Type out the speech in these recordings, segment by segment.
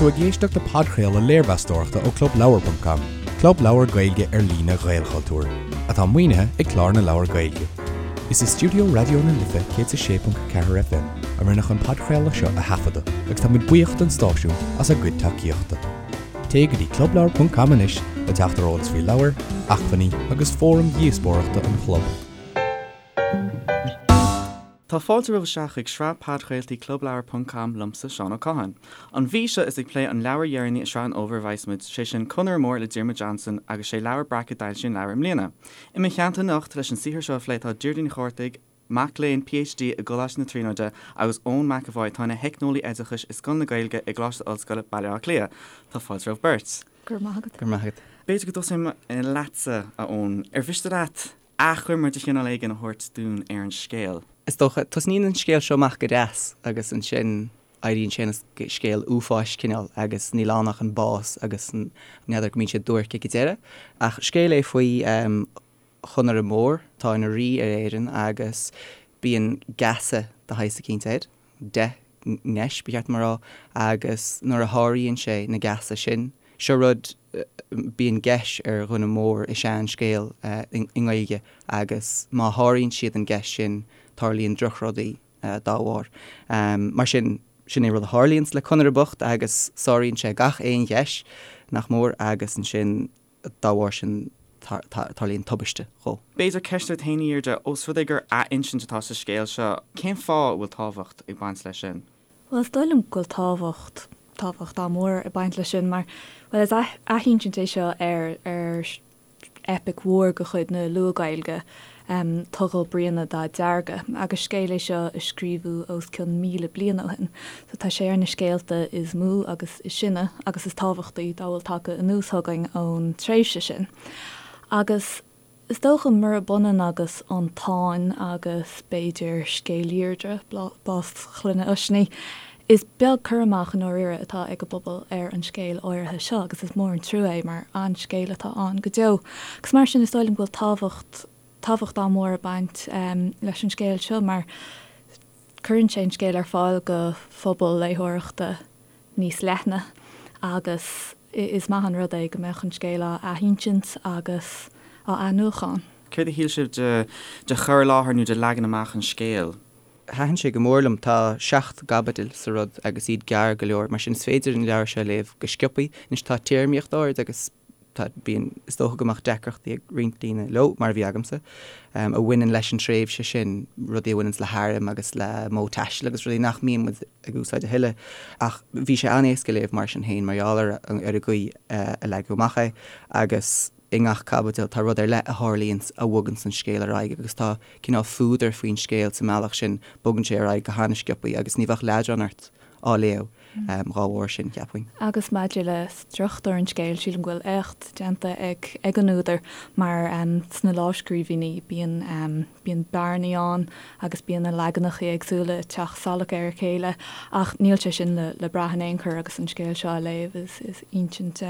tú ag éisteacht le podchraoladh léirmheastóireachta ó ClubLeabhar.com, club leabhar Gaeilge ar líne Ghaelchultúir, atá maoinithe ag Clár na Leabhar Gaeilge. Is i stiúideo Raidió na Life 106.4 FM a rinneadh an podchraoladh seo a thaifeadadh agus tá muid buíoch don stáisiún as a gcuid tacaíochta. Téigh go dtí clubleabhar.com anois le teacht ar eolas faoi leabhair, acmhainní agus fóraim dhíospóireachta an chlub. Tá fáilte romhaibh isteach chuig sraith podchraoltaí Clubleabhar ponc com liomsa, Seán Ó Catháin. An mhí seo is ag plé an leabhair dheireanaí i sraith an fhómhair a bheas muid, sé sin Conaire Mór le Diarmuid Johnson agus sé Leabhar Breac a d'fhoilsigh an leabhar i mbliana. I mo theannta anocht leis an saothar seo a phlé tá Deirdre Ní Chárthaigh, mac léinn PhD i gColáiste na Tríonóide agus Eoin McEvoy atá ina theicneolaí oideachais i Scoil na Gaeilge i gColáiste Ollscoile, Baile Átha Cliath. Tá fáilte romhaibh beirt. Go raibh maith agat. Go raibh maith agat. B'fhéidir go dtosóidh mé leatsa, a Eoin. Ar mhiste leat achoimre de chineál éigin a thabhairt dúinn ar an scéal. Is dócha, tosnaíonn an scéal seo amach go deas agus ansin éiríonn sé ina scéal uafáis cineál agus níl ann ach an bás agus n'fheadar go mbíonn sé duairc ag an deireadh. Ach scéal é faoi Chonaire Mór atá ina rí ar Éirinn agus bíonn geasa de shaghas eicínt air. 10 ngeis, ba cheart dom a rá, agus nuair a sháraíonn sé na geasa sin, seo rud, bíonn geis ar dhuine mór i sean-scéal i nGaeilge agus má sháraíonn siad an geis sin, tarlaíonn drochrudaí dá bharr. Mar sin, sin é rud a tharlaíonns le Conaire bocht agus sáraíonn sé gach aon gheis, nach mór, agus ansin, dá bharr sin tarlaíonn tubaiste dhó. B'fhéidir ceist duit féin, a Dheirdre, ós rud é gur athinsint atá sa scéal seo, cén fáth a bhfuil tábhacht ag baint leis sin? Bhuel, is dóigh liom go bhfuil tábhacht, tábhacht an-mhór ag baint leis sin mar, bhuel, is athinsint é seo ar, ar eipic mhór de chuid na Luath-Ghaeilge, Togail Briana Dá Derga, agus scéal é seo a scríobhadh os cionn 1,000 bliain ó shin. So tá sé ar na scéalta is mó agus is sine agus is tábhachtaí dá bhfuil tagtha anuas chugainn ón tréimhse sin. Agus is dócha, murab ionann agus an Táin agus b'fhéidir scéal Dheirdre, bás Chloinne Oisní, Is beag cur amach i ndáiríre atá ag an bpobal ar an scéal áirithe seo agus is mór an trua é mar an-scéal atá ann go deo. Agus mar sin is dóigh liom go bhfuil tábhacht, tábhacht an-mhór ag baint leis an scéal seo mar cuireann sé an scéal ar fáil go phobal léitheoireachta níos leithne agus is maith an rud é go mbeadh an scéal á athinsint agus á athnuachan. Céard a shíl sibh de, de chur i láthair nó de leagan amach an scéil? Thaitin sé go mór liom. Tá 7 gcaibidil sa rud agus iad gearr go leor, mar sin is féidir an leabhar seo a léamh go sciobthaí. Anois tá téarmaíocht áirid agus tá, bíonn, is dócha go mbeadh deacrachtaí ag roinnt daoine leo, mar a bhí agamsa, a bhaineann leis an tréimhse sin, rudaí a bhaineanns le hairm agus le modh taistil agus rudaí nach mbíonn muid ag úsáid a thuilleadh. Ach bhí sé an-éasca a léamh mar sin féin mar gheall ar ar an gcaoi a leagadh amach é agus i ngach caibidil tá rud ar leith a tharlaíonns a bhoganns an scéal ar aghaidh agus tá cineál fuadar faoin scéal sa mbealach sin, bogann sé ar aghaidh go han-sciobthaí agus ní bheadh leadrán ort á léamh dhá bharr sin, cheapfainn. Agus maidir le struchtúr an scéil, sílim go bhfuil éacht déanta ag ag an údar mar sna lámhscríbhinní bíonn bíonn bearnaí ann agus bíonn na leaganacha éagsúla ag teacht salach ar a chéile ach níl sé sin le le brath in aon chor agus an scéal seo á léamh is is insint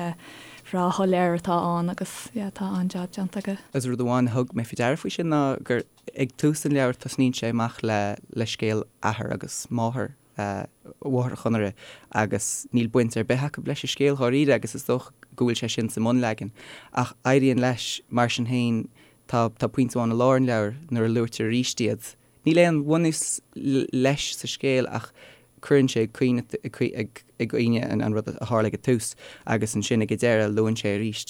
bhreá shoiléir atá ann agus yeah tá an-jab déanta aige. Agus rud amháin a thug mé faoi deara faoi sin ná gur ag tús an leabhair tosnaíonn sé amach le le scéal athar agus máthair mháthair Chonaire agus níl baint ar bith acu leis an scéal dháiríre agus is dócha go bhfuil sé sin sa mbunleagan. Ach éiríonn leis mar sin féin tá tá pointe amháin i lár an leabhair nuair a luaitear arís iad Níl aon bhunús leis sa scéal ach cuireann sé ag cuimhne an rud a tharla ag an tús agus ansin ag an deireadh luann sé arís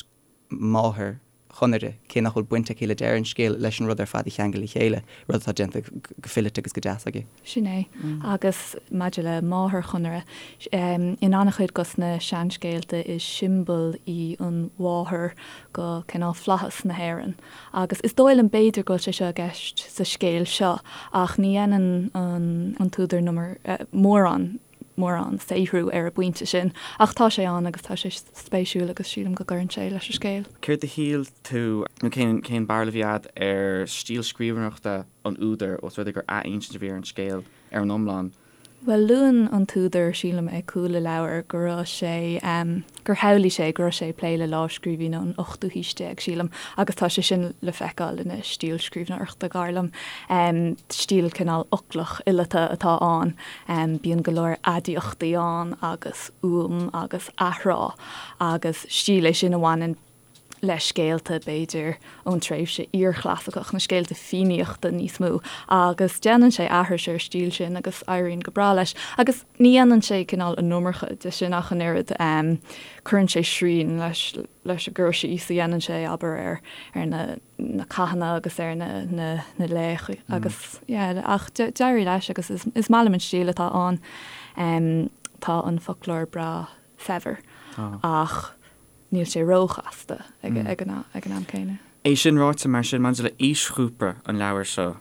máthair Chonaire, cé nach bhfuil baint aici le deireadh an scéil, leis an rud ar fad a cheangal le chéile, rud atá déanta go fileata agus go deas aige. Sin é. Agus maidir le máthair Chonaire, in an-chuid dos na seanscéalta is siombail í an mháthair go cineál flaitheas na hÉireann. Agus is dóigh liom b'fhéidir go bhfuil sé seo i gceist sa scéal seo ach ní dhéanann an t-údar mórán mórán saothrú ar an bpointe sin. Ach tá sé ann agus tá sé spéisiúil agus sílim go gcuireann sé leis an scéal. Céard a shíl tú, nó cén cén barúil a bhí agat ar stíl scríbhneoireachta an údair, ós rud é gur athinsint a bhí ar an scéal ar an iomlán? Bhuel, luann an t-údar, sílim, ag cúl an leabhair go raibh sé, gur shamhlaigh sé go raibh sé ag plé le lámhscríbhinn ón ochtú haois déag, sílim, agus tá sé sin le feiceáil ina stíl scríbhneoireachta, dar liom. Stíl cineál fhoclach fhileata atá ann. Bíonn go leor aidiachtaí ann agus uaim agus athrá agus stíl é sin a bhaineann le scéalta, b'fhéidir, ón tréimhse iarchlasaiceach, na scéalta Fiannaíochta níos mó, agus déanann sé aithris ar an stíl sin agus éiríonn go breá leis. Agus ní dhéanann sé cineál an iomarca de sin ach an oiread, cuireann sé srian leis leis an gcur síos a dhéanann sé, abair, ar ar na na cathanna agus ar na na na laocha agus yeah, ach d'éirigh leis agus is is maith liom an stíl atá ann. Tá an foclóir breá saibhir ach níl sé róchasta ag an am céanna. É sin ráite, mar sin, maidir le aoisghrúpa an leabhair seo,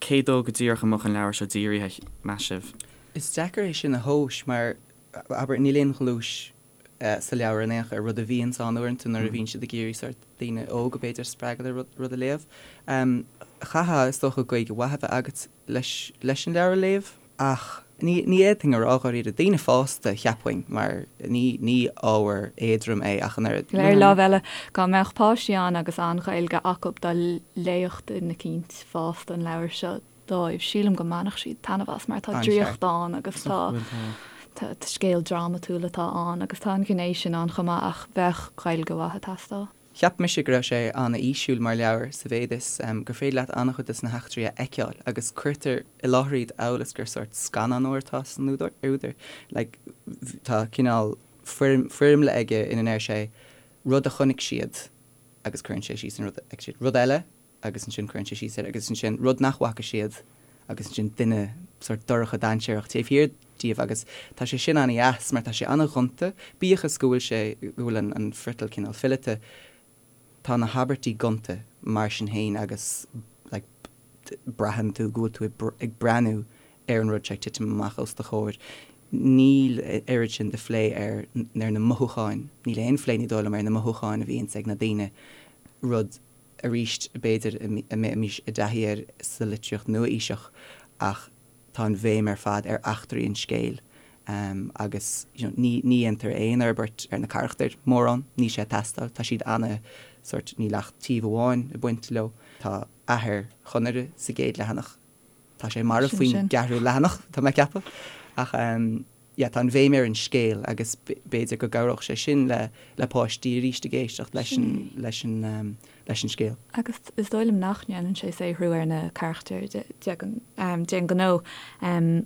cé dó go díreach a mbeadh an leabhar seo dírithe, meas sibh? Is deacair é sin a thomhas mar, abair, níl aon ghluais sa leabhar in aon chor, rud a bhíonns ann uaireanta nuair a bhíonn siad ag iarraidh sórt daoine óga, b'fhéidir, a spreagadh le rud a léamh. Chaithfeá, is dócha, Gaeilge mhaith a bheith agat leis leis an leabhar a léamh. Ach ní ní fhéadfainn a rá dháiríre. Daoine fásta, cheapfainn, mar ní ní ábhar éadrom é ach an oiread. Ar lámh eile, dá mbeadh páistí ann agus an-Ghaeilge acu, dá léifeadh duine eicínt fásta an leabhar seo dóibh, sílim go mbainfeadh siad taitneamh as mar tá draíocht ann agus tá tá scéal drámatúil atá ann agus tá an ghné sin ann chomh maith ach bheadh Gaeilge mhaith ag teastáil. Cheap mise go raibh sé an-fhísiúil mar leabhar sa mhéid is gur féidir leat an-chuid de na heachtraí a fheiceáil agus cuirtear i láthair iad amhail is gur sórt scannánóir atá san údar. Like, tá cineál foirmle aige ina ndeir sé rud a chonaic siad agus cuireann sé síos an rud a fheic siad, rud eile agus ansin cuireann sé síos air agus ansin rud nach bhfaca siad agus ansin duine sórt dorcha dainséarach taobh thiar díobh agus tá sé sin an-dheas mar tá sé an-ghonta, bíodh is go bhfuil sé, go bhfuil an an friotal cineál fileata, tá na habairtí gonta mar sin féin agus like braitheann tú go bhfuil tú ag breathnú ar an rud seo ag titim amach os do chomhair. Níl oiread sin de phlé ar ar na mothúcháin, níl aon phlé ní dóigh liom ar na mothúcháin a bhíonns ag na daoine, rud arís, b'fhéidir, a mbeimis i dtaithí air sa litríocht nua-aoiseach ach tá an bhéim ar fad ar eachtraí an scéil agus you know ní ní dhéantar aon fhorbairt ar na carachtair mórán, níl sé ag teastáil, tá siad ana sórt, níl ach taobh amháin ag baint leo. Tá athair Chonaire sa gcéad leathanach, tá sé marbh faoin gceathrú leathanach, tá mé ag ceapadh, ach yeah, tá an bhéim ar an scéal agus b'fhéidir go gcabhródh sé sin le le páistí arís ag éisteacht leis an leis an leis an scéal. Agus is dóigh liom nach ndéanann sé saothrú ar na carachtair d'aon ghnó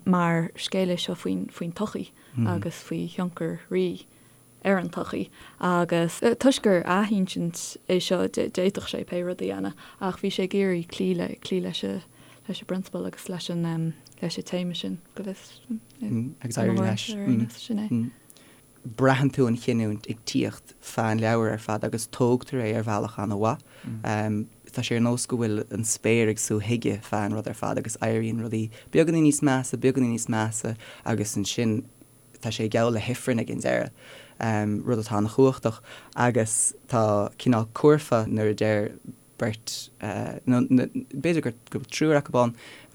mar scéal é seo faoin faoin tsochaí agus faoi thionchar rí ar an tsochaí agus toisc gur athinsint é seo d'fhéadfadh sé pé rud a dhéanamh ach bhí sé ag iarraidh cloí le cloí leis an leis an bprionsabal agus leis an leis an téama sin go bhfios Agus éiríonn leis. Sin é. Braitheann tú an chinniúint ag tíocht feadh an leabhair ar fad agus tógtar é ar bhealach an-mhaith. Tá sé ar nós go bhfuil an spéir ag sú chuige feadh an rud ar fad agus éiríonn rudaí beagáinín níos measa, beagáinín níos measa agus ansin tá sé geall le hifreann ag an deireadh, rud atá an-chumhachtach agus tá cineál curfá nuair a deir beirt, nó b'fhéidir go bhfuil triúr acu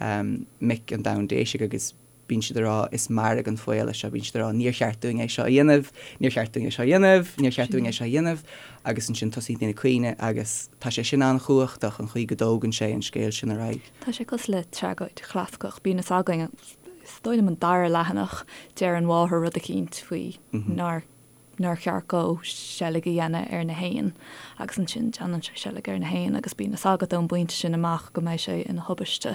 ann, mic an domhain déisigh agus bíonn siad ag rá is mairg an faol é seo, bíonn siad ag rá níor cheart dúinn é seo a dhéanamh, níor cheart dúinn é seo a dhéanamh, níor cheart dúinn é seo a dhéanamh agus ansin tosaíonn daoine ag caoineadh agus tá sé sin an-chumhachtach an chaoi go dtógann sé an scéal sin ar aghaidh. Tá sé cosúil le tragóid chlasaiceach, bíonn fhios againn Is dóigh liom an dara leathanach, deir an mháthair rud eicínt faoi nár nár cheart dhó seilg a dhéanamh ar na héin agus ansin déanann sé seilg ar na héin agus bíonn fhios agat ón bpointe sin amach go mbeidh sé ina thubaiste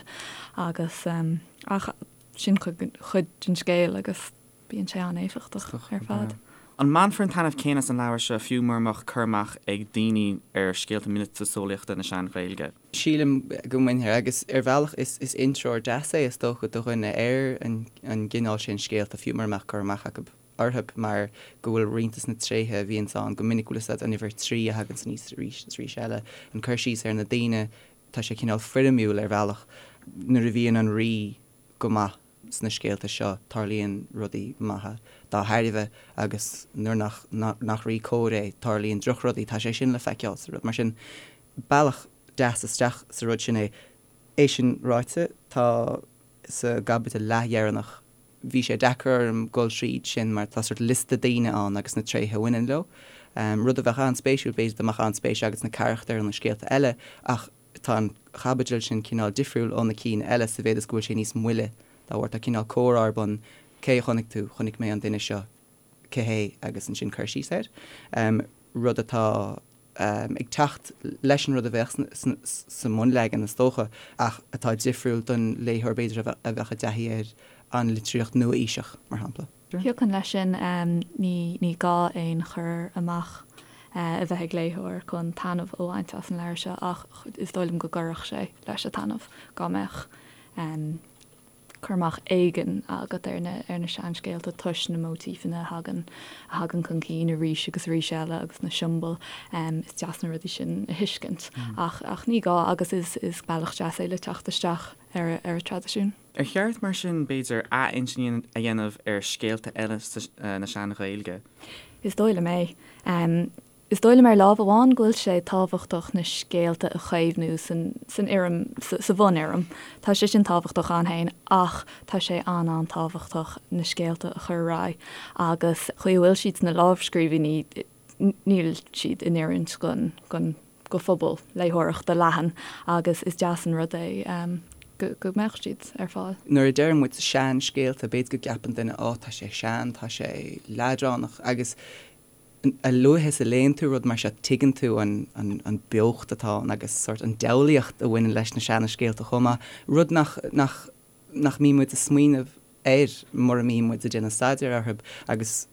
agus ach sin cuid den scéal agus bíonn sé an-éifeachtach ar fad. An mbainfear an taitneamh céanna as an leabhar seo fiú mura mbeadh cur amach ag daoine ar scéalta miotaseolaíochta na Sean-Ghaeilge? Sílim go mbainfear, agus ar bhealach is is intreoir deas é is dócha do dhuine ar an an gcineál sin scéalta fiú mura mbeadh cur amach acu orthu mar go bhfuil roinnt de na tréithe a bhíonns ann go minic bhfuil fhios agat an uimhir 3 a thaganns aníos arís is arís eile, an cur síos ar na daoine, tá sé cineál foirmiúil ar bhealach. Nuair a bhíonn an rí go maith sna scéalta seo, tarlaíonn rudaí maithe dá thairbhe agus nuair nach nach rí cóir é, tarlaíonn drochrudaí. Tá sé sin le feiceáil sa rud. Mar sin, bealach deas isteach sa rud sin é. É sin ráite, tá sa gcaibidil leathdheireanach. Bhí sé deacair orm dul tríd sin mar tá sort liosta daoine ann agus na tréithe a bhaineann leo. Rud a bheadh an-spéisiúil, b'fhéidir dá mbeadh an-spéis agat sna carachtair ó na scéalta eile ach tá an chaibidil sin cineál difriúil ó na cinn eile sa mhéad is go bhfuil sé níos moille dá bharr. Tá cineál comhrá ar bun, cé a chonaic tú, chonaic mé an duine seo, cé hé agus ansin cur síos air. Rud atá. ag teacht leis an rud a bheadh sa mbunleagan, is dócha, ach atá difriúil don léitheoir, b'fhéidir, a bheadh i dtaithí ar an litríocht nua-aoiseach, mar shampla. Thiocfainn leis sin. Ní gá aon chur amach a bheith ag léitheoir chun taitneamh a bhaint as an leabhar seo ach is dóigh liom go gcuirfeadh sé leis an taitneamh dá mbeadh cur amach éigin agat ar na ar na seanscéalta toisc na móitífeanna a thagann a thagann chun cinn arís agus arís eile agus na siombail. Is deas na rudaí sin a thuiscint ach ach ní gá agus is is bealach deas é le teacht isteach ar ar an traidisiún. Ar cheart mar sin, b'fhéidir, athinsint a dhéanamh ar scéalta eile na Sean-Ghaeilge? Is dóigh liom é. Is dóigh liom ar lámh amháin go bhfuil sé tábhachtach na scéalta a chaomhnú san fhoirm, sa bhunfhoirm. Tá sé sin tábhachtach ann féin ach tá sé an-an-tábhachtach na scéalta a chur ar aghaidh agus chaoi a bhfuil siad sna lámhscríbhinní níl siad in oiriúint don, don, do phobal léitheoireachta leathan agus is deas an rud é go mbeadh siad ar fáil. Nuair a deireann muid seanscéalta b'fhéidir go gceapann duine 'Ó tá sé sean, tá sé leadránach' agus A luaithe is a léann tú rud mar seo tuigeann tú an beocht atá ann agus sórt an diabhlaíocht a bhaineann leis na seana-scéalta chomh maith, rud nach, nach, nach mbíonn muid ag smaoineamh air mura mbíonn muid ag déanamh staidéir orthu agus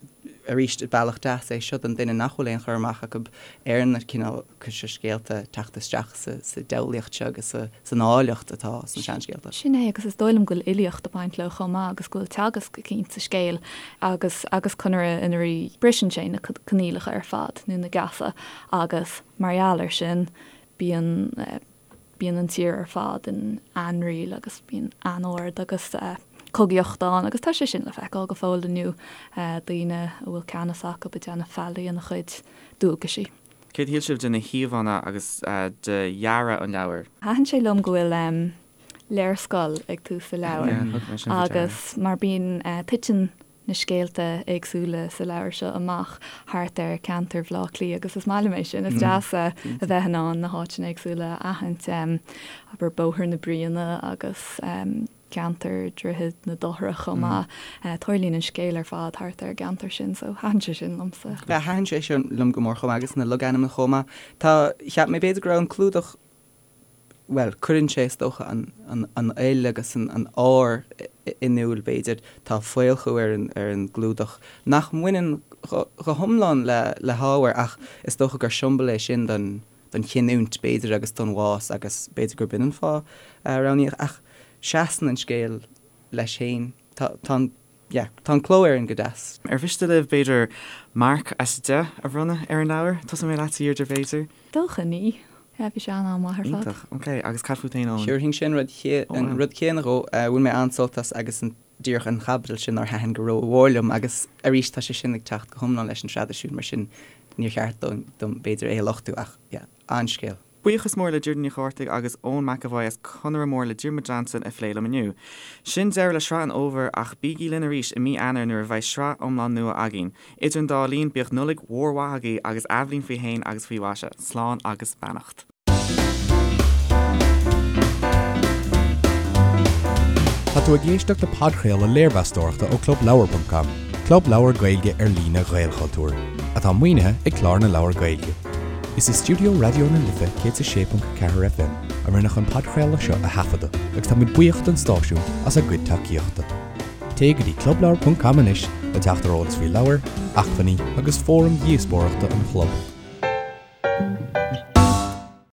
arís bealach deas é seo don duine nach bhfuil aon chur amach acu ar na cineálacha seo scéalta teacht isteach sa, sa diabhlaíocht seo agus sa, san áilleacht atá sna seanscéalta. Sin é agus is dóigh liom go bhfuil fhilíocht ag baint leo chomh maith agus go bhfuil teagasc eicínt sa scéal agus agus Conaire ina rí briseann sé na coinníollacha ar fad nó na geasa agus mar gheall air sin bíonn bíonn an tír ar fad in ainriail agus bíonn anord agus cogaíocht ann agus tá sé sin le feiceáil go fóill inniu, daoine a bhfuil ceannas acu ag déanamh faillí ina chuid dualgaisí. Céard a shíl sibh de na híomhánna agus de dhearadh an leabhair? Thaitin sé liom go bhfuil léarscáil ag tús an leabhair agus mar bíonn, titeann na scéalta éagsúla sa leabhar seo amach thart ar cheantar Bhaile Átha Cliath agus is maith liom é sin, is deas a bheith in ann na háiteanna éagsúla a aithint, abair Bóthar na Bruíne agus ceantar Dhroichead na Dochrach chomh maith. Tarlaíonn an scéal ar fad thart ar an gceantar sin so thaitin sé sin liomsa. Thaitin sé sin liom go mór chomh maith agus na logainmneacha chomh maith. Tá, cheap mé b'fhéidir go raibh an clúdach, bhuel, cuireann sé is dócha an, an, an fhuil agus an, an ár in iúl b'fhéidir. Tá faolchú ar an, ar an gclúdach nach mbaineann go, go hiomlán le, le hábhar ach is dócha gur siombail é sin don, don chinniúint b'fhéidir agus don bhás agus b'fhéidir gurb in an fáth a roghnaíodh ach seasann an scéal leis féin. Tá, tá an, yeah, tá an cló air go deas. Ar mhiste libh b'fhéidir marc as 10 a bhronnadh ar an leabhar? Tosóidh mé leatsa a Dheirdre b'fhéidir? Dócha ní. Yeah, bhí sé an-an-mhaith ar fad. Iontach, ok. Agus cad fút féin, Eoin? Thabharfainnse an rud, an rud céanna dhó. Bhain mé an-sult as agus an, díreach an chaibidil sin nár thaitin go rómhór liom agus arís tá sé sin ag teacht go hiomlán leis an traidisiún mar sin níor cheart dom b'fhéidir é a lochtú ach yeah, an-scéal. Buíochas mór le Deirdre Ní Chárthaigh agus Eoin McEvoy as Conaire Mór le Diarmuid Johnson a phléigh liom inniu. Sin deireadh le sraith an fhómhair ach bígí linn arís i mí Eanáir nuair a bheidh sraith iomlán nua againn. Idir an dá linn, bíodh Nollaig mhór mhaith agaibh agus athbhliain faoi shéan agus faoi mhaise. Slán agus beannacht. Tá tú ag éisteacht le podchraoladh léirmheastóireachta ó ClubLeabhar.com, club leabhar Gaeilge ar líne Ghaelchultúir, atá maoinithe ag Clár na Leabhar Gaeilge. Is i stiúideo Raidió na Life 106.4 FM a rinneadh an podchraoladh seo a thaifeadadh agus táimid buíoch don stáisiún as a gcuid tacaíochta. Téigh go dtí clubleabhar.com anois le teacht ar eolas faoi leabhair, acmhainní agus fóraim dhíospóireachta an chlub.